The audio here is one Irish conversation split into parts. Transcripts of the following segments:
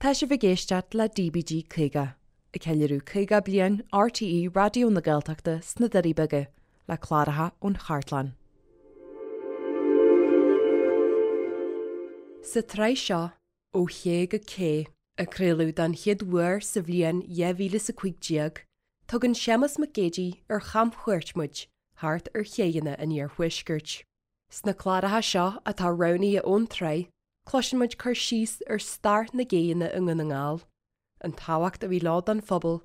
Tá sibh ag éisteacht le DBG 50, ag ceiliúradh 50 bliain RTÉ Raidió na Gaeltachta sna Doirí Beaga, le cláracha ón chartlann. Sa tsraith seo, Ó Ché go Cé, a craoladh don chéad uair sa bhliain 2015, tugann Séamus Mac Géidigh ar chamchuairt muid thart ar chéidheanna an iarthuaiscirt. Sna cláracha seo atá roghnaithe ón tsraith, cloiseann muid cur síos ar stair na gcéidheanna i nDún na nGall, an tábhacht a bhí leo don phobal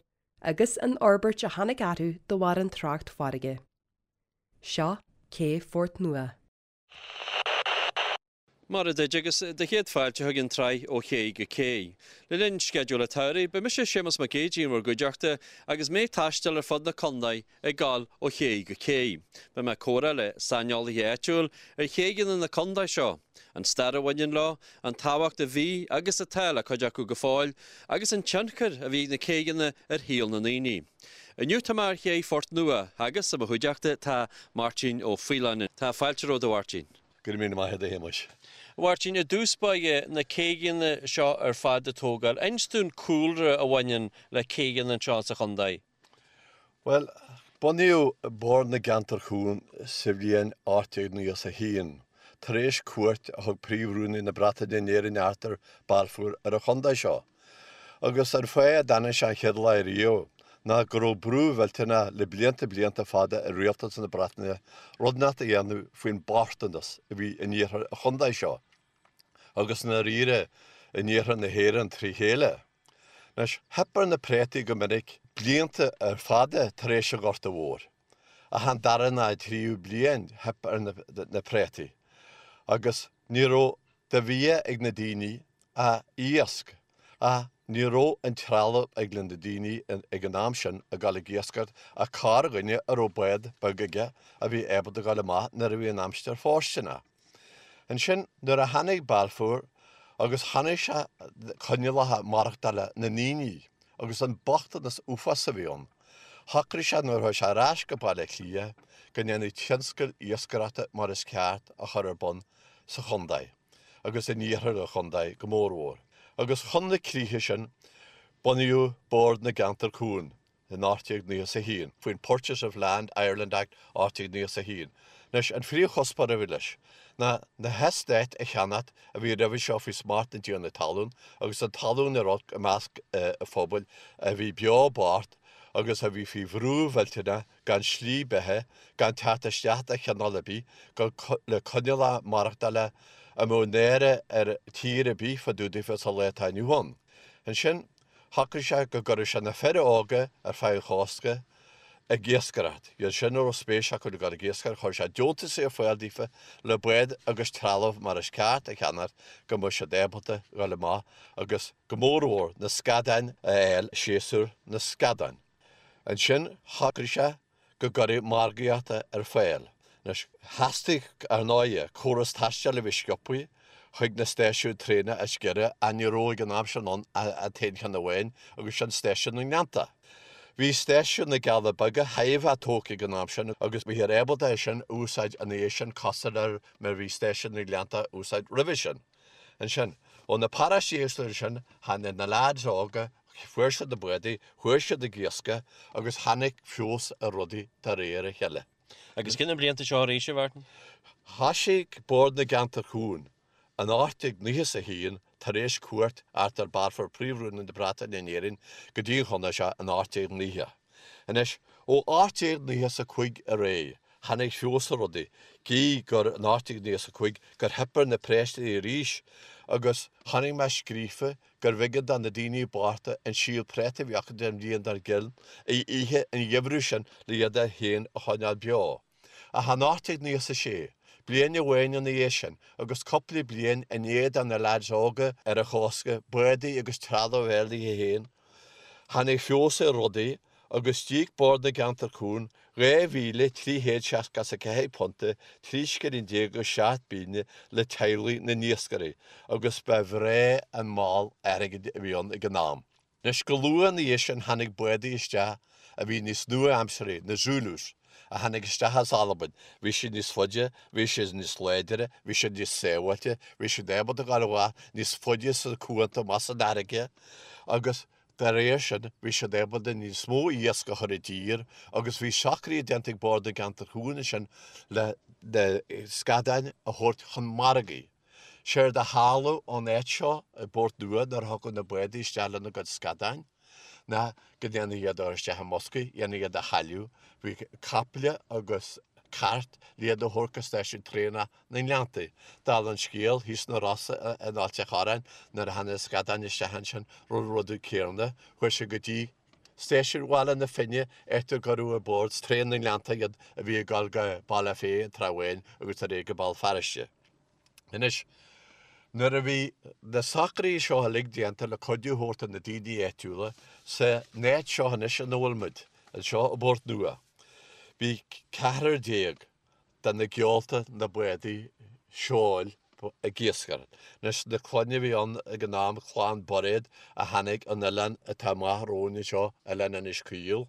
agus an fhorbairt a tháinig orthu de bharr an trácht farraige. Seo Cé Phort Nua. Maith duit agus do chéad fáilte chuig an tsraith Ó Ché go Cé. Le linn sceideal an tsamhraidh, beidh mise Séamus Mac Géidigh in bhur gcuideachta agus mé ag taisteal ar fud na contae ag gabháil ó ché go cé. Beidh mé ag comhrá le saineolaithe áitiúil ar chéidheanna na contae seo, an stair a bhaineann leo, an tábhacht a bhí agus atá le cuid acu go fóill, agus an tionchar a bhí ag na céidheanna ar shaol na ndaoine. Inniu tá mé ar ché Phort Nua agus i mo chuideachta tá Máirtín Ó Faoláin. Tá fáilte romhat a Mháirtín. Go raibh míle maith agat a Shéamuis. A Mháirtín, i dtús báire, na céidheanna seo ar fad a tógáil, inis dúinn cúlra a bhaineann le céidheanna anseo sa chontae. Bhuel, bunaíodh Bord na gCeantar Cuan sa bhliain 1891, tar éis cuairt a thug Príomh-Rúnaí na Breataine in Éirinn Arthur Balfour ar an chontae seo. Agus an fáth a dtáinig sé an chéad lá riamh ná go raibh brú mhillteanach le blianta blianta fada ar rialtas na Breataine rud inteacht a dhéanamh faoin bochtanas a bhí in iarthar an chontae seo, agus i ndáiríre in iarthar na hÉireann trí chéile. Anois, theip ar na préataí go minic blianta ar fada tar éis an Ghorta Mhóir. Ach an dara ná an tríú bliain theip ar na préataí agus ní raibh de bhia ag na daoine ach iasc, ach ní raibh an trealamh ag na daoine ag an am sin ag dul ag iascaireacht ach corrdhuine a raibh bád beag aige a bhí ábalta dul amach nuair a bhí an aimsir fóirsteanach. Ansin nuair a tháinig Balfour agus chonaic sé coinníollacha maireachtála na ndaoine agus an bochtanas uafás a bhí ann, shocraigh sé nuair a chuaigh sé ar ais go Baile Átha Cliath go ndéanfaí tionscal iascaireachta mar is ceart a chur ar bun sa chontae agus in iarthar an chontae go mórmhór, agus chun na críche sin bunaíodh Bord na gCeantar Cuan in 1891, faoin Purchase of Land, Ireland, Act 1891. Anois, an phríomhchuspóir a bhí leis ná na heastáit a cheannacht a bhí roimhe seo faoi smacht na dtiarnaí talún agus an talún a raibh i measc an phobail a bhí beo bocht agus a bhí faoi bhrú mhillteanach gan slí beatha, gan teacht isteach de chineál ar bith, gan le coinníollacha maireachtála a mbeadh náire ar tír ar bith fá dtaobh daofa sa lá atá inniu ann. Ansin, shocraigh sé go gcuirfeadh sé na fir óga ar feadh an chósta ag iascaireacht. Iad sin a raibh spéis acu le dul ag iascaireacht, chuir sé deontasaí ar fáil daofa le bád agus trealamh mar is ceart a cheannacht go mbeadh siad ábalta dhul amach agus go mórmhór na scadáin a fháil séasúr na scadán. Ansin shocraigh sé go gcuirfeadh margaíocht ar fáil. Anois, theastaigh, ar ndóighe, córas taistil a bhí sciobtha chuig na stáisiúin traenach is giorra ach ní raibh ag an am sin ann ach an t-aon cheann amháin agus sin stáisiún na nGleannta. Bhí stáisiún na gCealla Beaga chóir a bheith tógtha ag an am sin agus bhíothar ábalta é sin a úsáid ina dhiaidh sin cosúil le mar a bhí stáisiún na nGleannta á úsáid roimhe sin. Ansin, ó na paróistí éagsúla sin, tháinig na leaids óga Fuair siad na bádaí, chuaigh siad ag iascach agus tháinig feabhas ar rudaí de réir a chéile. Agus cé na blianta seo arís, a Mhártain? Thoisigh Bord na gCeantar Cuan in 1891 tar éis cuairt Arthur Balfour, Príomh-Rúnaí na Breataine in Éirinn, go dtí an chontae seo in 1890. Anois, ó 1895 ar aghaidh, tháinig feabhas ar rudaí, gí gur in 1895 gur theip ar na préataí arís agus chonaic mé scríofa gurbh éigean do na daoine bochta an síol préata a bhí acu den bhliain dár gcionn a ithe an gheimhreadh sin le iad féin a choinneáil beo. Ach in 1896, bliain amháin ina dhiaidh sin, agus cúpla bliain i ndiaidh do na leaids óga ar an chósta bádaí agus trealamh a fháil daofa féin, tháinig feabhas ar rudaí agus d'íoc Bord na gCeantar Cuan £2,364, 13 scilling agus 7 bpingin le teaghlaigh na n-iascairí agus ba bhreá an moll airgid a bhí ann ag an am. Anois go luath ina dhiaidh sin tháinig bádaí isteach a bhí níos nua-aimsearthaí, na Zulus. a tháinig isteach as Albain, bhí siad níos faide, bhí siad níos láidre, bhí siad níos sábháilte, bhí siad ábalta dul amach níos faide sna cuanta amach san fharraige agus dá réir sin bhí siad ábalta níos mó iasc a chur i dtír agus bhí socruithe déanta ag Bord na gCeantar Cuain ansin le na scadáin a thabhairt chun margaidh. Séard a tharla ón áit seo i bPort Nua nuair a thiocfadh na bádaí isteach lena gcuid scadáin ná go ndéanfaí iad a chur isteach i mboscaí, dhéanfaí iad a shaileadh. Bhí caiple agus cairt le iad a thabhairt go stáisiún traenach na nGleanntaí. Dála an scéil, thíos sna Rosa in Ailt a' Chorráin nuair a tháinig na scadáin isteach ansin, rinneadh an rud céanna, chuaigh siad go dtí Stáisiún Bhaile na Finne, áit a gcuireadh ar bord traein na nGleannta iad a bhí ag dul go Baile Féith an Trá Bháin agus ar aghaidh go Béal Feirste. Anois, nuair a bhí na socruithe seo uilig déanta le cuidiú a thabhairt do na daoine áitiúla sa áit seo anois ina bhfuil muid, anseo i bPort Nua, bhí 14 de na geolta na bádaí seoil ag iascaireacht. Anois, na clanna a bhí ann ag an am, clann Bairéad a tháinig ón oileán atá amach romhainn anseo, Oileán Inis Caoil.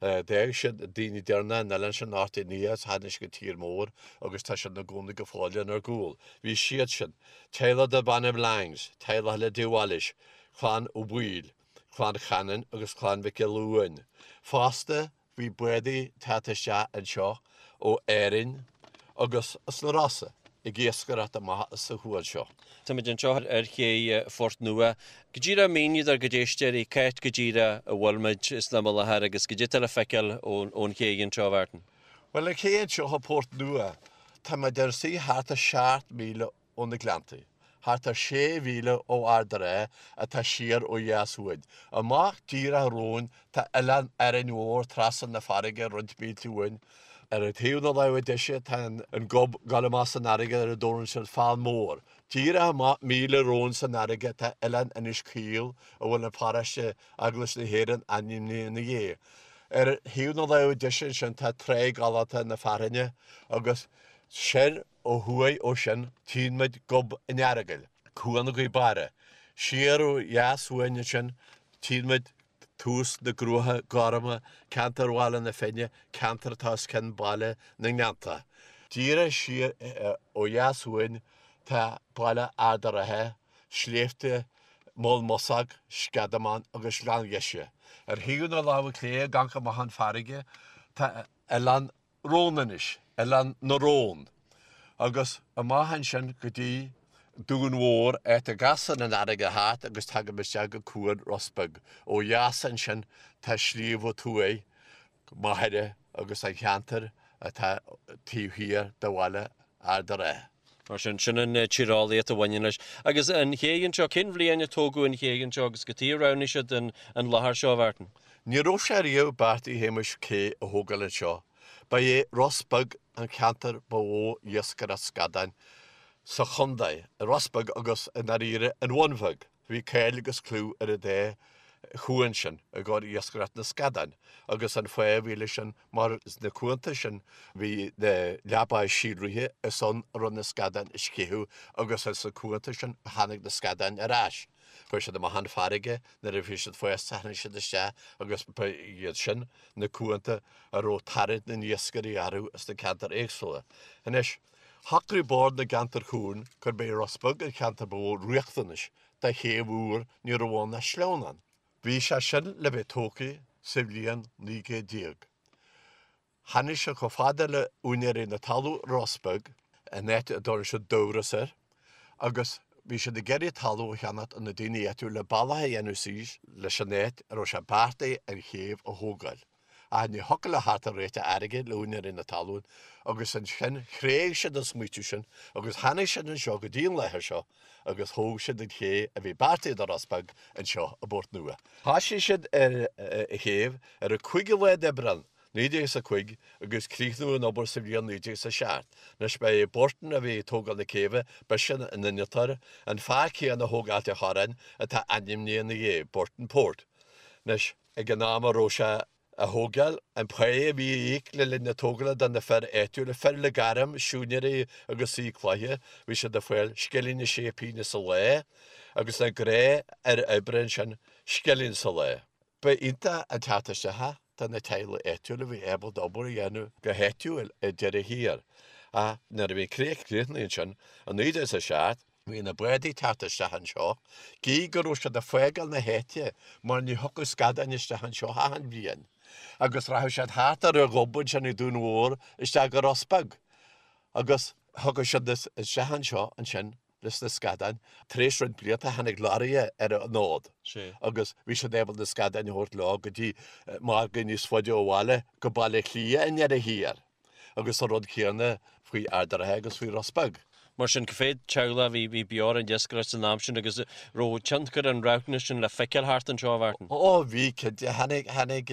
D'fhág siad daoine deireanacha an oileáin sin in 1890 agus tháinig siad go tír mór agus tá siad ina gcónaí go fóill inár gcúl. Bhí siad sin, teaghlach darb ainm Langs, teaghlach eile de Wallis, clann Ó Baoill, clann Chanainn agus clann Mhic Giolla Uain. Fosta, Bhí bádaí teacht isteach anseo ó Árainn agus as na Rosa ag iascaireacht amach as an chuan seo. Táimid anseo ar ché Phort Nua. Go díreach mínigh dár gcuid éisteoirí c'áit go díreach a bhfuil muid san am i láthair agus goidé atá le feiceáil ón ché anseo, a Mhartin. Bhuel, an ché anseo i bPort Nua, táimid inár suí thart ar 7 míle ó na Gleanntaí, thart ar sé mhíle ó Ard a' Rátha atá siar ó dheas uainn. Amach díreach romhainn tá Oileán Árainn Mhór trasna na farraige roinnt mílte uainn. Ar thaobh na láimhe deise tá an gob ag dul amach san fharraige ar a dtabharann siad Fál Mór. Díreach amach míle romhainn san fharraige tá Oileán Inis Caoil a bhfuil an paróiste Eaglais na hÉireann ainmnithe ina dhiaidh. Ar thaobh na láimhe deise ansin tá Tráigh Ghalánta na Fearthainne agus soir Ó thuaidh ó sin tchíonn muid Gob an Earagail, Cuan Ghaoth Beara. Siar ó dheas uainn ansin tchíonn muid tús na gCruacha Gorma, ceantar Bhaile na Finne, ceantar atá os cionn Baile na nGleanntach. Díreach siar ó dheas uainn tá baile Ard a' Rátha, sléibhte Mholl Mosach, Sceadamán agus Gleann Gheise. Ar thaobh na láimhe clé ag amharc amach an farraige tá Oileán Rónainis, Oileán na Rón, agus amach ansin go dtí Dún Mhór, áit a gcasann an fharraige thart agus tagann isteach go Cuan Ros Beag. Ó dheas ansin tá Sliabh a' Tuaidh, Machaire agus an cheantar atá taobh thiar de bhaile Ard a' Rátha. Mar sin, sin an tíreolaíocht a bhaineann leis. Agus an ché anseo, cén bhliain a tógadh an ché anseo agus cad chuige a roghnaigh siad an láthair seo, a Mhartin? Ní raibh sé riamh beartaithe a Shéamais cé a thógáil anseo. Ba é Ros Beag an ceantar ba mhó iascaireacht scadáin sa chontae, Ros Beag agus, i ndáiríre, an Bhun Bheag. Bhí cáil agus clú ar an dá chuan sin i gcomhair iascaireacht na scadán agus an fáth a bhí leis sin mar sna cuanta sin bhí na leabáí síolraithe is ann a raibh na scadáin ag sceitheadh agus as na cuanta sin a tháinig na scadáin ar ais. Chuaigh siad amach chun farraige, nuair a bhí siad fásta tháinig siad isteach agus ba iad sin na cuanta a raibh tarraingt na n-iascairí orthu sna ceantair éagsúla. Anois, shocraigh Bord na gCeantar Cuain gurb é Ros Beag an cheantar ba mhó riachtanais do chéibh úr, ní raibh ann ach sleamhnán. Bhí sé sin le bheith tógtha sa bhliain 19 céad. Tháinig siad chomh fada le úinéirí na talún i Ros Beag, an áit a dtabharann siad Dubhros air, agus bhí siad ag iarraidh talamh a cheannacht ó na daoine áitiúla le bealach a dhéanamh suas leis an áit a raibh sé beartaithe an chéibh a thógáil. Ach ní thiocfadh leo theacht ar réiteach airgid le úinéirí na talún agus ansin thréig siad an smaoitiú sin agus tháinig siad anseo go dtí an láthair seo agus thóg siad an ché a bhí beartaithe do Ros Beag anseo i bPort Nua. Thoisigh siad ar an chéibh ar an 5ú lá d'Aibreán 1905 agus críochnaíodh an obair sa bhliain 1907. Anois ba é Burton a bhí ag tógáil na céibhe, b'eisean an innealtóir, an fear céanna a thóg Ailt a' Chorráin atá ainmnithe ina dhiaidh, Burtonport. Anois, ag an am a raibh sé á thógáil, an pá a bhí á íoc le linn na tógála do na fir áitiúla, fir le gairm, siúinéirí agus saoi cloiche, bhí siad ag fáil scilling is sé pingine sa lá agus na gnáthfhir oibre ansin, scilling sa lá. Ba iontach an teacht isteach é. do na teaghlaigh áitiúla a bhí ábalta obair a dhéanamh go háitiúil ar deireadh thiar. Ach nuair a bhí an chríoch críochnaithe ansin i 1907, bhí na bádaí ag teacht isteach anseo, gidh go raibh siad ag fágáil na háite mar ní thiocfadh scadáin isteach anseo achan bhliain, agus rachadh siad thart ar an ghob ansin ag Dún Mhór isteach go Ros Beag, agus thiocfadh siad isteach anseo ansin leis na scadáin. Tar éis roinnt blianta tháinig lorraithe ar an fhód agus bhí siad ábalta na scadáin a thabhairt leo go dtí margaí níos faide ó bhaile, go Baile Átha Cliath i ndeireadh thiar. Agus an rud céanna faoi Ard an Rátha agus faoi Ros Beag. Mar sin, cá mhéad teaghlach a bhí bhí beo ar an iascaireacht san am sin agus raibh tionchar an roghnais sin le feiceáil thart anseo, a Mhartin? Ó bhí, cinnte. Tháinig, tháinig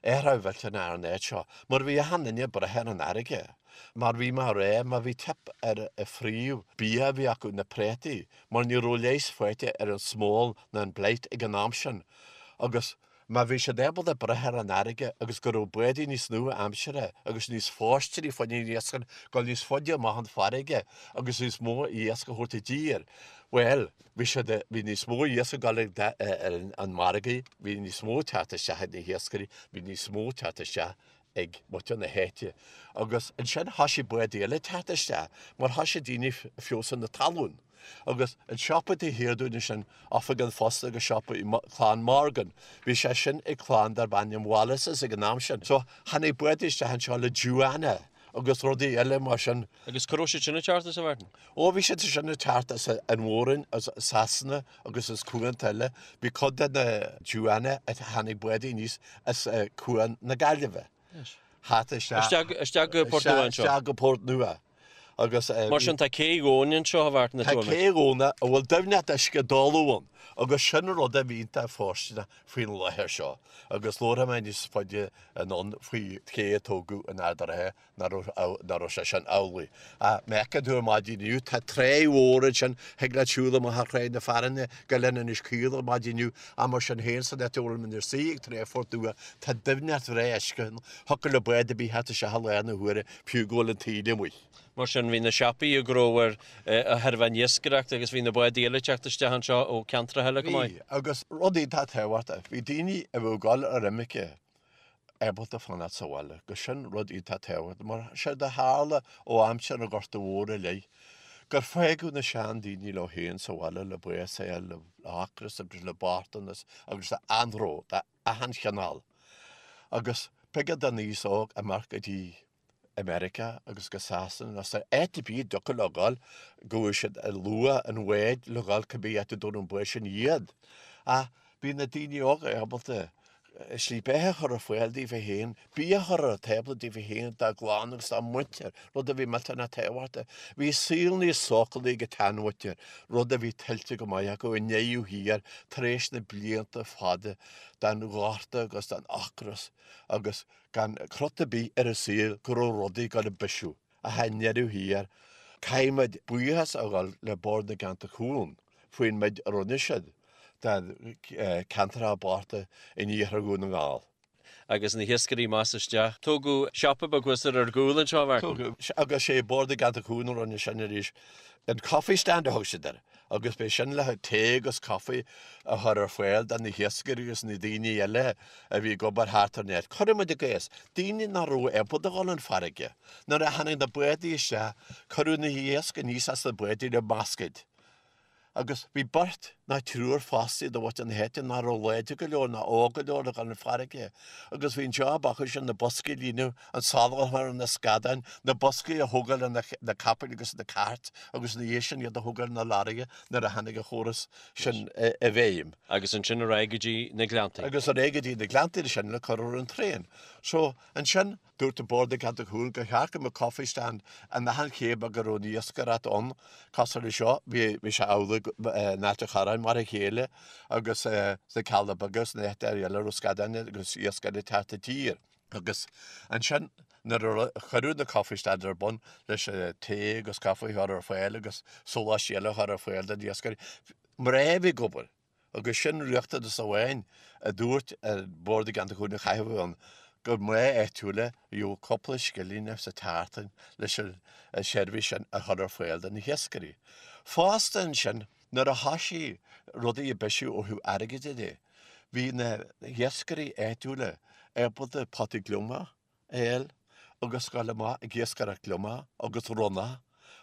athrú millteanach ar an áit seo mar bhí achan duine ag brath ar an fharraige. Mar bhí mé a rá, má bhí teip ar an phríomh bia a bhí acu, na préataí, mar ní raibh leigheas faighte ar an smól ná an blight ag an am sin agus Má bhí siad ábalta brath ar an fharraige agus go raibh bádaí níos nua-aimseartha agus níos fóirsteanaí fá choinne an iascaireacht dul níos faide amach an farraige agus níos mó iasc a thabhairt i dtír, bhuel, bhí siad, bhí níos mó iasc ag dul ar an margaí, bhí níos mó ag teacht isteach ag na hiascairí, bhí níos mó ag teacht isteach ag muintir na háite. Agus ansin thoisigh bádaí eile ag teacht isteach mar thoisigh daoine ag feabhsú na talún. Agus an siopa taobh thiar dúinn ansin, Oifig an Phosta agus siopa Clann Morgan, bhí sé sin ag clann darb ainm Wallaces ag an am sin. So tháinig bádaí isteach anseo le dewanna agus rudaí eile mar sin. Agus cá raibh siad sin ag teacht as, a Mhartin? Ó bhí siad sin ag teacht as an Mhór-Roinn, as Sasana agus as cuanta eile. Bhí cuid de na dewanna a tháinig bádaí aníos as Cuan na Gaillimhe. Thart isteach. Isteach go Port Nua anseo. Isteach go Port Nua. Agus. Mar sin tá cé dhomhain anseo, a Mhartin, Tá cé dhomhain a bhfuil doimhneacht uisce doleamh ann agus sin rud a bhí iontach fóirsteanach faoin láthair seo. Agus labharfaidh mé níos faide anonn faoi ché a tógadh in Ard an Rátha nach raibh sé sin amhlaidh. Ach má fheiceann tú ar maidin inniu, tá tráigh mhór ansin, thig leat siúl amach ar Thráigh na Fearthainne go Oileán Inis Caoil ar maidin inniu, ach mar sin féin, san áit a bhfuil muid inár suí ag Trá Phort Nua, tá doimhneacht bhreá uisce ann, thiocfadh le bád ar bith theacht isteach i lár na huaire, fiú go bhfuil an taoille amuigh. Mar sin, bhí na siopaí ag gnóthú de thairbhe an iascaireacht agus bhí na bádaí eile ag teacht isteach anseo ó ceantracha eile chomh maith. Bhí, agus rud iontach tábhachtach, bhí daoine a bheadh ag dul ar imirce ábalta fanacht sa bhaile, agus sin rud iontach tábhachtach, mar séard a tharla ó aimsir an Ghorta Mhóir i leith, gur fágadh na seandaoine leo féin sa bhaile le bás a fháil, le hocras agus le bochtanas agus le anró d'achan chineál. Agus b'éigean don aos óg imeacht go dtí America agus go Sasana nó sa áit ar bith a dtiocfadh leo dhul, go bhfuair siad luach an bháid le dhul cibé áit a dtabharfadh an bád sin iad. Ach bhí na daoine óga ábalta slí beatha a chur ar fáil daofa féin, bia a chur ar an tábla daofa féin, dá gclann agus dá muintir, rud a bhí millteanach tábhachtach. Bhí saol níos sócúlaí ag an tseanmhuintir, rud a bhí tuillte go maith acu i ndeireadh thiar tar éis na blianta fada den ghorta agus den ocras agus gan crot ar bith ar an saol go raibh rudaí ag dul ag bisiú. Ach i ndeireadh thiar, caithfimid buíochas a ghabháil le Bord na gCeantar Cúng faoin méid a rinne siad do cheantracha bochta in iarthar Dhún na nGall. Agus na hiascairí amach is isteach. Tógadh siopa beag thuas ar ár gcúl anseo, a Mhartin. Tógadh, agus sé Bord na gCeantar Cúng a rinne sin arís. An Coffee Stand a thug siad air agus b'é sin le tae agus caife a chur ar fáil do na hiascairí agus na daoine eile a bhí ag obair thart ar an áit. Cuireann muid i gcás, daoine nach raibh ábalta a dhul chun farraige. Nuair a tháinig na bádaí isteach, cuireadh na hiasc aníos as na bádaí le bascaeid. Agus bhí beirt nó triúr fostaithe de mhuintir na háite nach raibh láidir go leor ná óg go leor le dhul chun farraige. Agus bhí an job acu sin na boscaí a líonadh, an salann a chur ar na scadáin, na boscaí a thógáil ar na capaill agus na cairt agus ina dhiaidh sin iad a thógáil ar na lorraithe nuair a tháinig an chóras sin i bhfeidhm. Agus ansin ar aghaidh go dtí na Gleanntaí. Agus ar aghaidh go dtí na Gleanntaí ansin le cur ar an traein. So, ansin. Dúirt an Bord na gCeantar Cúng gur cheart go mbeadh coffee stand in achan ché beag a raibh an iascaireacht ann, cosúil le seo, bhí sé amhlaidh in Ailt an Chorráin mar a chéile agus sna Cealla Beaga agus sna háiteanna eile a raibh scadáin agus iascairí ag teacht i dtír. Agus ansin nuair a cuireadh na coffee stands ar bun leis an tae agus caife a chur ar fáil agus sóláistí eile a chur ar fáil do na hiascairí, mná a bhí ag obair. Agus sin riachtanas amháin a dúirt an Bord na gCeantar Cúng a chaithfeadh a bheith ann, gur mná áitiúla a gheobhadh cúpla scilling sa tseachtain leis an seirbhís sin a chur ar fáil do na hiascairí. Fosta ansin, nuair a thoisigh rudaí ag bisiú ó thaobh airgid de, bhí na hiascairí áitiúla. ábalta potaí gliomach a fháil agus gabháil amach ag iascaireacht gliomach agus ronnach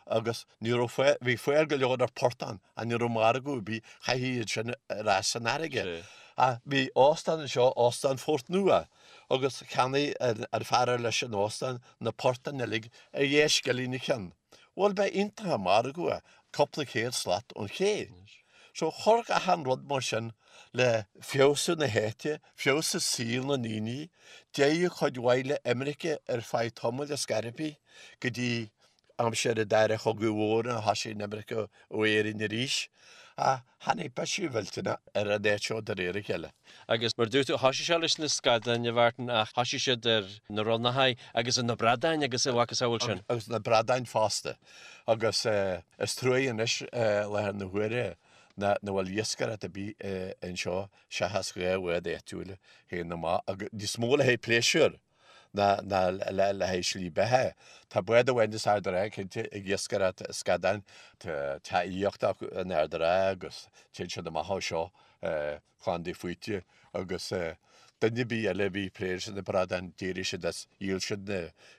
agus ní raibh fáil, bhí fáil go leor ar portán ach ní raibh margadh ar bith, chaithfí iad sin ar ais san fharraige. Ach bhí óstán anseo, Óstán Phort Nua, agus cheannaigh an fear ar leis an óstán na portáin uilig ar dheich scilling an ceann. Bhuel, ba iontach an margadh é, cúpla céad slat ón ché. So chuir achan rud mar sin le feabhsú na háite, feabhsú saol na ndaoine, d'éirigh cuid mhaith le imirce ar feadh tamaill ar scor ar bith go dtí aimsir an Dara Chogaidh Mhóir nuair a thosaigh an imirce ó Éirinn arís. Ach tháinig bisiú millteanach ar an áit seo de réir a chéile. Agus mar a dúirt tú, thosaigh sé leis na scadáin, a Mhartin, ach thosaigh siad ar na ronnacha agus ar na bradáin agus a mhacasamhail sin. Agus na bradáin fosta. Agus is truaighe anois i láthair na huaire nach bhfuil iascaireacht ar bith anseo seachas 2 bhád áitiúil a théann amach agus níos mó le haghaidh pléisiúir ná le haghaidh slí beatha. Tá bád amháin as Ard an Rátha cinnte ag iascaireacht scadáin. Tá teach aíochta acu in Ard an Rátha agus téann siad amach ó seo Clann Dé Faoite agus duine ar bith eile a bhí ag plé leis na bradáin, d'éirigh siad as, dhíol siad na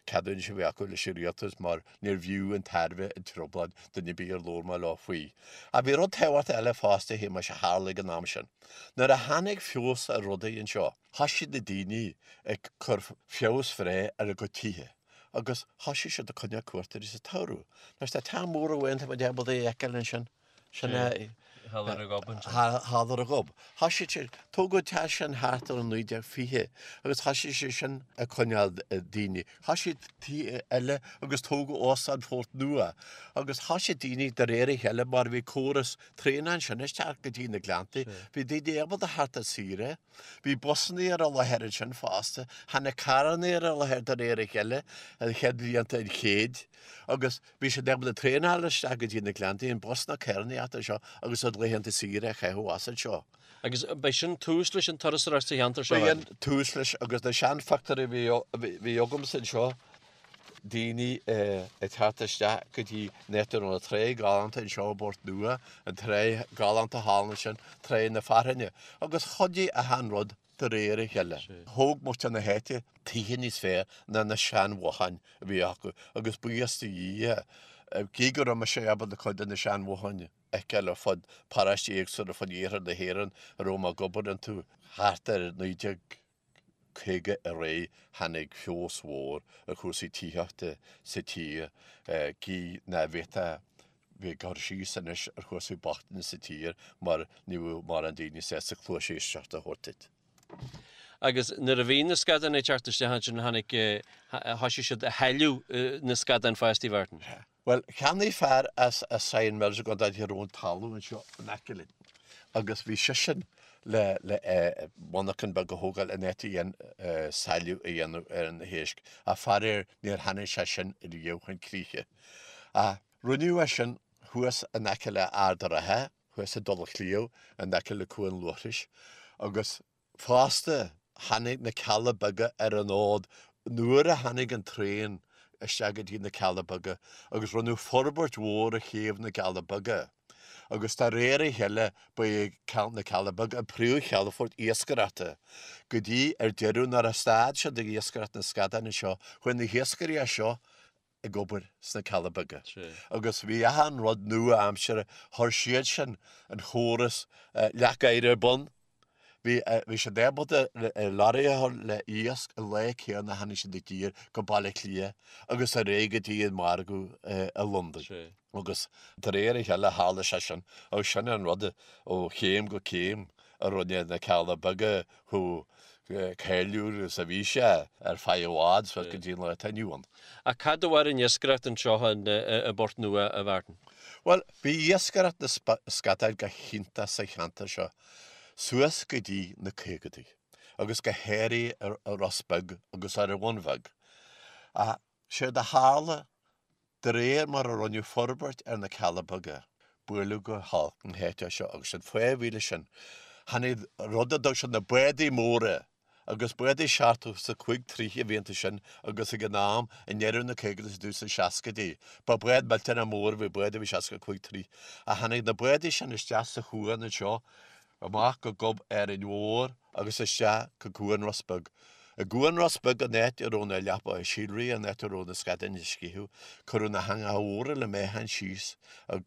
ceadúnais a bhí acu leis an rialtas mar níorbh fhiú an tairbhe an trioblóid duine ar bith ar labhair mé leo faoi. Ach bhí rud tábhachtach eile fosta a Shéamais a tharla ag an am sin. Nuair a tháinig feabhas ar rudaí anseo, thosaigh na daoine ag cur feabhas bhreá ar a gcuid tithe agus thosaigh siad ag coinneáil cuairteoirí sa tsamhradh. Anois tá teach mór amháin tá muid ábalta a fheiceáil ansin. Sin é. Thall ar an ghob ansin. Thall ar an ghob. Thosaigh sé, tógadh an teach sin thart ar 1920 agus thosaigh sé sin ag coinneáil daoine. Thosaigh tithe eile agus tógadh Óstán Phort Nua agus thosaigh daoine de réir a chéile mar bhí córas traenach ansin isteach go dtí na Gleanntaí. Bhí daoine ábalta theacht ar saoire. Bhí busannaí ar an láthair ansin fosta. Tháinig carrannaí ar an láthair de réir a chéile i chéad bhlianta an chéid agus Bhí siad ábalta traenáil isteach go dtí na Gleanntaí, an bus na carrannaíochta anseo agus a laethanta saoire a chaitheamh as anseo. Agus b'é sin tús leis an turasóireacht sa cheantar seo? B'é an tús leis agus na seanphictiúirí a bhí agamsa anseo, daoine ag teacht isteach go dtí an áit a raibh an trá galánta anseo i bPort Nua, an trá galánta thall ansin, Trá na Fearthainne, agus chuidigh achan rud de réir a chéile. Thóg muintir na háite tithe níos fearr ná na seanbhotháin a bhí acu agus buíochas do Dhia, gidh go raibh mise ábalta cuid de na seanbhotháin a fheiceáil ar fud paróistí éagsúla ar fud iarthar na hÉireann a raibh mé ag obair iontu thart ar 1950 ar aghaidh tháinig feabhas mhór ar chúrsaí tithíochta sa tír gidh ná bhféadfá bheith ag cur síos anois ar chúrsaí bochtaine sa tír mar ní bheadh mórán daoine sásta cluas éisteachta a thabhairt duit. Agus nuair a bhí na scadáin ag teacht isteach ansin tháinig, thoisigh siad a shailleadh na scadáin fosta, a Mhartin. Bhuel, cheannaigh fear as Sion Mills i gContae Thír Eoghain talamh anseo in aice linn agus bhí seisean le le monarchan beag a thógáil in áit a dhein sailleadh a dhéanamh ar na héisc ach faraor níor tháinig sé sin riamh chun críche. Ach Rinneadh é sin thuas in aice le Ard a' Rátha, thuas i dTulach Shliabh, in aice le Cuan Luaithris, agus fosta tháinig na Cealla Beaga ar an fhód nuair a tháinig an traein isteach go dtí na Cealla Beaga agus rinneadh forbairt mhór ar chéibh na gCealla Beaga agus de réir a chéile ba é na Cealla Beaga an príomhchalafort iascaireachta go dtí ar deireadh nuair a stad siad ag iascaireacht na scadán anseo chuaigh na hiascairí as seo ag obair sna Cealla Beaga agus bhí achan rud nua-aimseartha, chuir siad sin an chóras leac oighir ar bun, bhí bhí siad ábalta lorry a chur le iasc an lá céanna a tháinig siad i dtír go Baile Átha Cliath agus ar aghaidh go dtí an margadh i Londain. Agus de réir a chéile tharla sé sin agus sin an rud ó chéim go céim a rinne na Cealla Beaga chomh cáiliúil is a bhí sé ar feadh i bhfad suas go dtí an lá atá inniu ann. Ach cad a mhair an iascaireacht anseo i bPort Nua, a Mhartin? Bhuel, bhí iascaireacht na scadán go hiontach sa cheantar seo suas go dtí na caogadaí, agus go háirithe ar Ros Beag agus ar an Bhun Bheag. Ach séard a tharla De réir mar a rinneadh forbairt ar na Cealla Beaga, buaileadh go holc an háit seo agus an fáth a bhí leis sin, tháinig rud a dtug siad na bádaí móra agus bádaí 75 troigh a bhí iontu sin agus ag an am, i ndeireadh na caogaidí is i dtús na seascaidí, ba bád millteanach mór a bhí bád a bhí 65 troigh. Ach tháinig na bádaí sin isteach sa chuan anseo, amach go Gob Árainn Mhór agus isteach go Cuan Ros Beag. I gCuan Ros Beag an áit a raibh na leapacha síolraithe, an áit a raibh na scadáin ag sceitheadh, cuireadh na heangacha mhóra le meáchan síos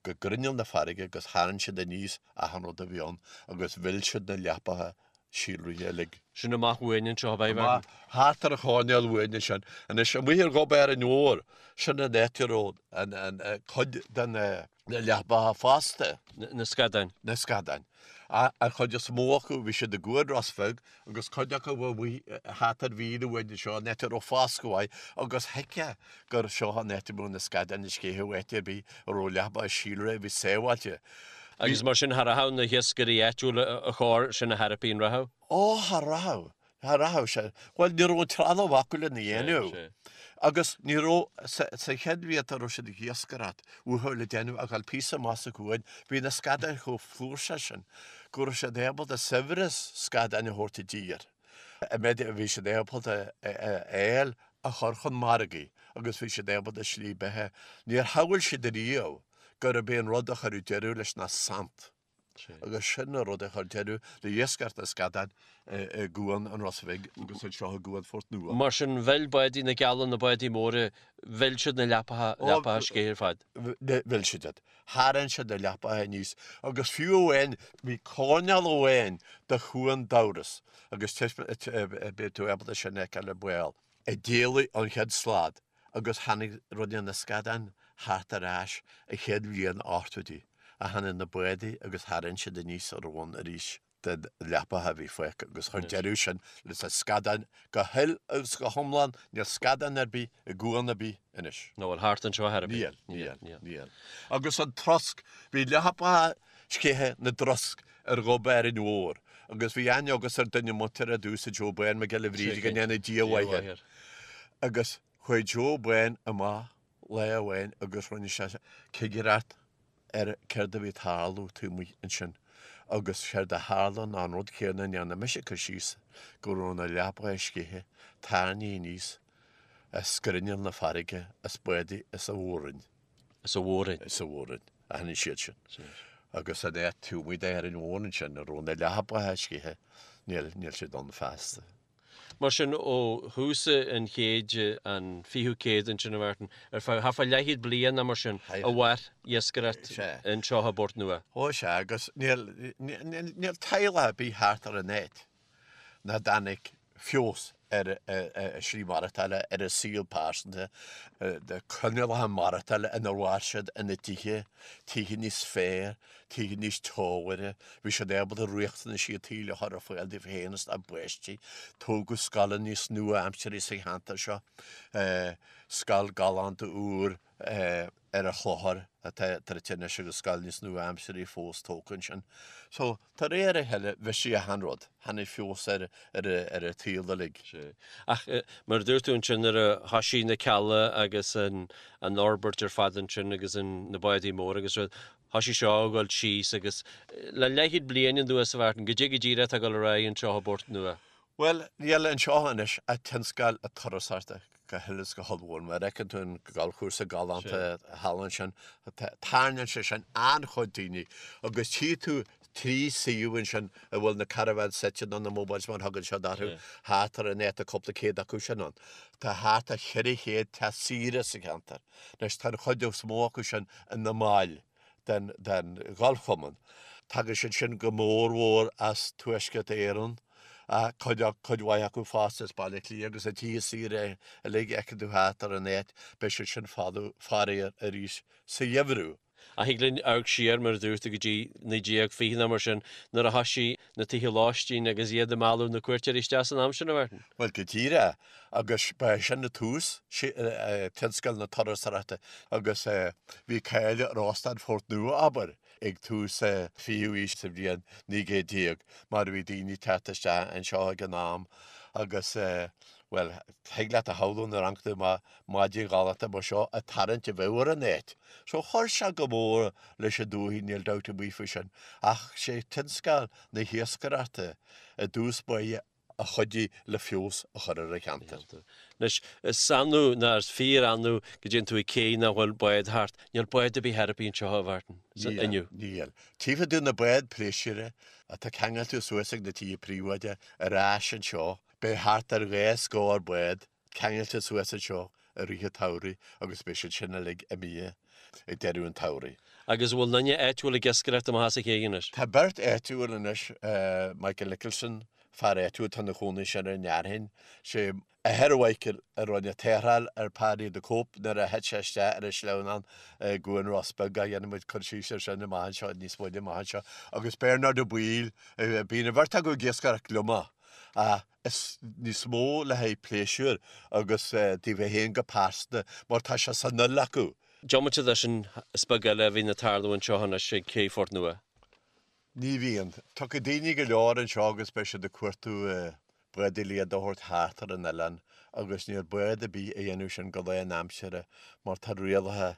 go grinneall na farraige agus tharraing siad aníos achan rud a bhí ann agus mhill siad na leapacha síolraithe uilig. Sin amach uainn anseo, ab ea, Mhartin? Thart ar an choirnéal uainn ansin. Anois, amuigh ar Ghob Árainn Mhór, sin an áit a raibh an cuid de na leapacha fosta. Na scadáin. Na scadáin. An chuid is mó acu, bhí siad i gCuan Ros Bheag agus cuid acu amuigh thart ar mhíle uainn anseo, an áit a raibh foscadh mhaith agus thuigfeá gur seo an áit a mbeadh na scadáin ag sceitheadh áit ar bith a raibh leapacha síolraithe a bhí sábháilte. Agus mar sin, cha rachadh na hiascairí áitiúla a chor sin a thairpí an rachadh? Ó, cha rachadh. Cha rachadh sé. Bhuel, ní raibh an trealamh acu lena dhéanamh. Agus ní raibh, sa chéad bhlianta a raibh siad ag iascaireacht uathu le déanamh ach dul píosa amach sa chuan, bhí na scadáin chomh flúirseach sin go raibh siad ábalta saibhreas scadáin a thabhairt i dtír. An méid a bhí siad ábalta a fháil a chur chun margaidh agus bhí siad ábalta slí beatha. Níor shamhail siad ariamh gurb é an rud a chuirfeadh deireadh leis ná saint. Agus sin an rud a chuir deireadh le hiascaireacht na scadán i gCuan an Ros Bhig agus anseo i gCuan Phort Nua. Mar sin, mhill bádaí na gcealla, na bádaí móra, mhill siad na leapacha, leapacha sceiche ar fad. Mhill siad iad. Tharraing siad na leapacha aníos agus fiú amháin, bhí coirnéal amháin de Chuan Dubhrois agus beidh tú ábalta sin a fheiceáil ar ball. a d'éalaigh an chéad slad agus tháinig rinne na scadáin thart ar ais an chéad bhliain ochtóidí a tháinig na bádaí agus tharraing siad aníos a raibh ann arís den leapacha a bhí fágtha agus chuir deireadh sin leis na scadáin go huile agus go hiomlán, níl scadán ar bith i gcuan ar bith anois. Nó bhfuil thart anseo ar bith? Níl, níl, níl. Agus an trosc, bhí leapacha sceiche na dtrosc ar Ghob Árainn Mhór agus bhí aithne agamsa ar duine muinteartha domhsa Joe Bán Mac Giolla Bhríde go ndéana Dia a mhaith air. Agus chuaigh Joe Bán amach lá amháin agus rinne sé cigireacht ar céard a bhí ag tarlú taobh amuigh ansin agus séard a tharla ná an rud céanna a ndearna mise cur síos go raibh na leapacha sceiche tarraingthe aníos as grinneall na farraige as bádaí as an Mhór-Roinn. As an Mhór-Roinn. As an Mhór-Roinn a tháinig siad sin. Agus an áit taobh amuigh d'Árainn Mhór ansin a raibh na leapacha sceiche, níl, níl siad ann feasta. Mar sin, ó thús an chéid, an fichiú céad ansin, a Mhartin, ar feadh, thart fá leathchéad bliain nó mar sin, a mhair iascaireacht anseo i bPort Nua. Ó sea, agus níl, níl, níl teaghlach ar bith thart ar an áit nach dtáinig feabhas ar a slí maireachtála, ar a saol pearsanta, na coinníollacha maireachtála inar mhair siad ina dtithe, tithe níos fearr, tithe níos teomhaire, bhí siad ábalta riachtanaisí an tsaoil a chur ar fáil dóibh féin is dá bpáistí. Tógadh scoileanna níos nua-aimseartha sa cheantar seo, scoil galánta úr ar an Chlochar atá druidte anois agus scoil níos nua-aimseartha fós tógtha ansin. So, de réir a chéile, bhisigh achan rud. Tháinig feabhas ar ar an tsaol uilig. Sea. Ach mar a dúirt tú ansin nuair a thoisigh na cealla agus an an fhorbairt ar fad ansin agus an na bádaí móra agus rud, thoisigh seo a dhul síos agus le leathchéad bliain anuas a Mhartin, goidé go díreach atá ag dul ar aghaidh anseo i bPort Nua. Bhuel, níl anseo anois ach tionscal na turasóireachta go huile is go hollmhór. Mar a fheiceann tú an galfchúrsa galánta thall ansin, tarraingíonn sé sin an-chuid daoine agus tchí tú 3 suíomh ansin a bhfuil na caravans suite nó na mobiles mar a thugann siad orthu, thart ar an áit, tá cúpla céad acu sin ann. Tá thart ar 400 teach saoire sa cheantar. Anois tá an chuid is mó acu sin ina mbaill. den Ghalfchumann. Tagann siad sin go mórmhór as Tuaisceart Éireann, cuid cuid mhaith acu fosta as Baile Átha Cliath agus na tithe saoire uilig a fheiceann tú thart ar an áit, beidh siad sin folamh faraor arís sa gheimhreadh. Ach thig linn amharc siar, mar a dúirt tú, go dtí 1920 nó mar sin, nuair a thoisigh na tithe lóistín agus iad ag mealladh na cuairteoirí isteach san am sin, a Mhartin. Bhuel, go díreach. Agus ba é sin an tús, tionscal na turasóireachta agus bhí cáil ar Óstán Phort Nua, abair, ag tús an fichiú aois sa bhliain 1900 mar bhí daoine ag teacht isteach anseo ag an am agus, bhuel, thig leat a shamhlú nuair a amharc tú amach maidin ghalánta mar seo an tarraingt a bheadh ar an áit. So chuir sé go mór leis an dúthaigh, níl dabht ar bith faoi sin. Ach sé tionscal na hiascaireachta i dtús báire a chuidigh le feabhas a chur ar an cheantar. Anois, is annamh, ná is fíor-annamh go dtéann tú ag cé nach bhfuil bád thart. Níl bád ar bith ar bith anseo, a Mhartin, inniu. Níl. Tchífidh tú na báid pléisiúir atá ceangailte suas ag na tithe príobháideacha ar ais anseo. Beidh thart ar 2 scór bád ceangailte suas anseo i rith an tsamhraidh agus beidh siad sin uilig imithe ag deireadh an tsamhraidh. Agus an bhfuil duine áitiúil ag iascaireacht amach as an ché anois? Tá beirt áitiúil anois, Michael Nicholson, fear áitiúil atá ina chónaí ansin ar an fhearthainn, sé athair Mhichael a rinne tarrtháil ar Paddy the Cope nuair a thit sé isteach ar an sleamhnán i gCuan Ros Beag, dhéanfaidh muid cur síos air sin amach anseo, níos moille amach anseo, agus Bernard Ó Baoill, bíonn an bheirt acu ag iascaireacht gliomach, ach is níos mó le haghaidh pléisiúir agus daofa féin go pearsanta mar tá sé san fhuil acu. Diomaite de sin, is beag eile a bhíonn ag tarlú anseo anois ag Cé Phort Nua. Ní bhíonn. Tiocfaidh daoine go leor anseo agus beidh siad ag cuartú bádaí le iad a thabhairt thart ar an oileán agus níl bád ar bith a dhéanamh sin go lánaimseartha mar tá rialacha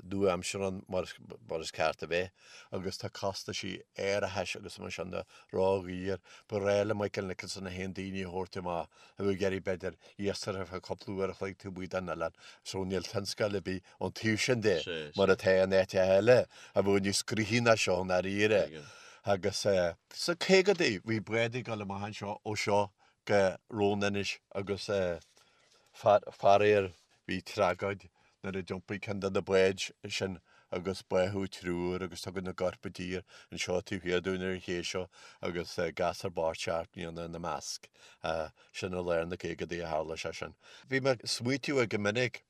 nua-aimseartha ann mar is ceart a bheith agus tá costaisí árachais agus mar sin de ródhaor. Ba ghnách le Michael Nicholson é féin daoine a thabhairt amach a bheadh ag iarraidh b'fhéidir iascaireacht ar feadh cúpla uair a chloig taobh amuigh den oileán so níl tionscal ar bith ón taobh sin de, mar atá in áiteacha eile a bheadh níos gnoithí ná seo i ndáiríre. Agus sna caogadaí bhí báid ag dul amach anseo ó seo go Roan Inish agus faraor bhí tragóid nuair a d'iompaigh ceann de na báid sin agus báthadh triúr agus tugadh na gcoirp i dtír anseo taobh thiar dúinn ar an ché seo agus gasúr bocht 7 mbliana ina measc. Sin i lár na gcaogadaí a tharla sé sin. Bhí mé ag smaoitiú go minic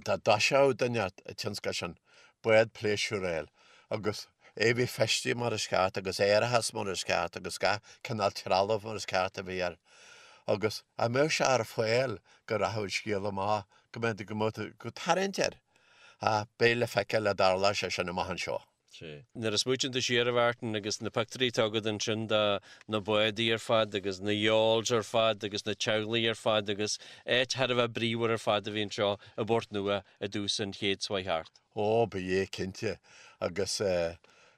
dá dtoiseodh duine an tionscal sin, bád pléisiúir a fháil agus é a bheith feistithe mar is ceart agus árachas mar is ceart agus gach cineál trealamh mar is ceart a bheith air agus dá mbeadh sé ar fáil go rachadh an scéal amach, go mbeadh, go mbeadh tarraingt air. Ach beidh le feiceáil an dtarlóidh sé sin amach anseo. Sea. Nuair a smaoitíonn tú siar, a Mhartin, agus na pictiúirí atá agat ansin de na bádaí ar fad agus na yawls ar fad agus na teaghlaigh ar fad agus áit thar a bheith bríomhar ar fad a bhí anseo i bPort Nua i dtús an chéid seo chuaigh thart. Ó, ba ea, cinnte. Agus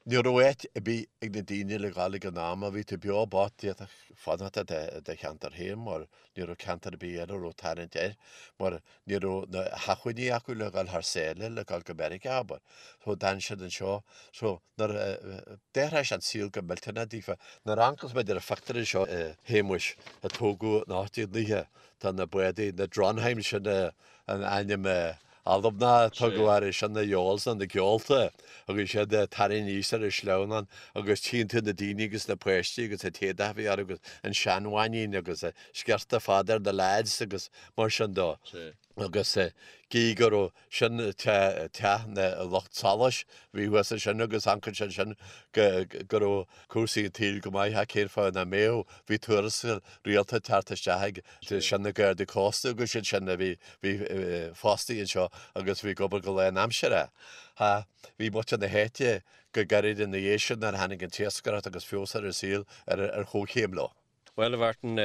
ní raibh áit ar bith ag na daoine le dhul ag an am. Má bhí tú beo bocht, d'fhéadfadh fanacht i do cheantar féin mar ní raibh ceantar ar bith eile a raibh tarraingt air mar Ní raibh na hacmhainní acu le dhul thar sáile, le dhul go Meiriceá, abair. So d'fhan siad anseo. So nuair a d'athraigh sé an saol go millteanach daofa. Nuair a amharcas muid ar an phictiúr anseo a Shéamuis, a tógadh in 1890, tá na bádaí, na Drontheim, sin an ainm Albanach a tugadh orthu, sin na yawls nó na geolta, agus iad ag tarraingt aníos ar an sleamhnán agus tchíonn tú na daoine agus na páistí agus an t-éadach a bhí orthu agus an seanbhainín agus an sciorta fada ar na lads agus mar sin de. Agus gí go raibh sin teach na lucht solais a bhí thuas ansin agus amharcann sé ansin go raibh cúrsaí an tsaoil go maith ach cén fáth nach mbeadh? Bhí tuarastal rialta ag teacht isteach ag sin na Gardaí Cósta agus iad sin a bhí bhí fostaithe anseo agus bhí ag obair go lánaimseartha. Bhí muintir na háite go gairid ina dhiaidh sin nuair a tháinig an t-iascaireacht agus feabhas ar an saol ar chomhchéim leo. Bhuel, a Mhartin,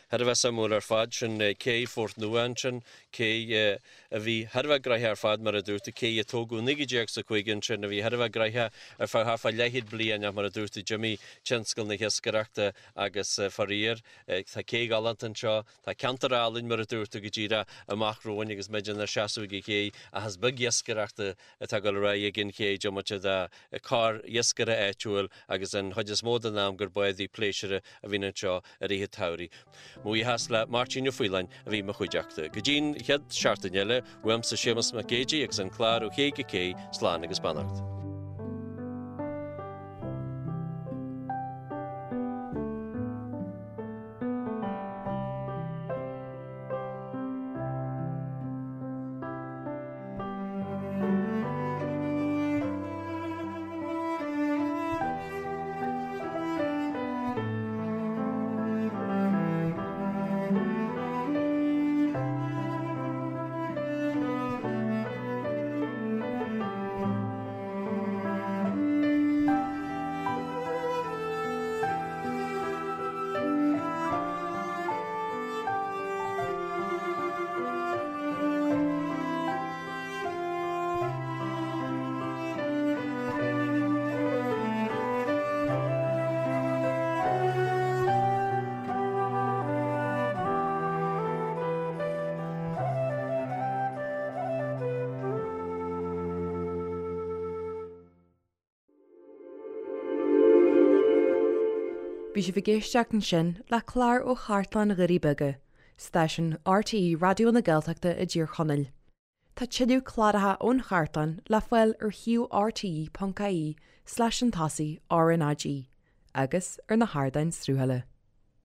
thar a bheith suimiúil ar fad, sin cé Phort Nua ansin, cé a bhí thar a bheith gnoitheach ar fad, mar a dúirt tú, cé a tógadh i 1905 ansin, a bhí thar a bheith gnoitheach ar feadh thart fá leathchéad bliain ach mar a dúirt tú, d'imigh tionscal na hiascaireachta agus faraor, tá cé ghalánta anseo, tá ceantar álainn, mar a dúirt tú, go díreach amach romhainn agus muid inár seasamh ag an ché ach is beag iascaireachta atá ag dul ar aghaidh ag an ché, diomaite de corr-iascaire áitiúil agus an chuid is mó den am gur bádaí pléisiúrtha a bhíonn anseo i rith an tsamhraidh. Mo bhuíochas le Máirtín Ó Faoláin a bhí i mo chuideachta. Go dtí'n chéad seachtain eile, uaimse Séamus Mac Géidigh agus an clár Ó Ché go Cé, slán agus beannacht. Bhí sibh ag éisteacht ansin le clár ó Chartlann Dhoirí Beaga, stáisiún RTÉ Raidió na Gaeltachta i dTír Chonaill. Tá tuilleadh cláracha ón chartlann le fáil ar shuíomh rte.ie slash an tosaigh RnaG agus ar na hardáin sruthála.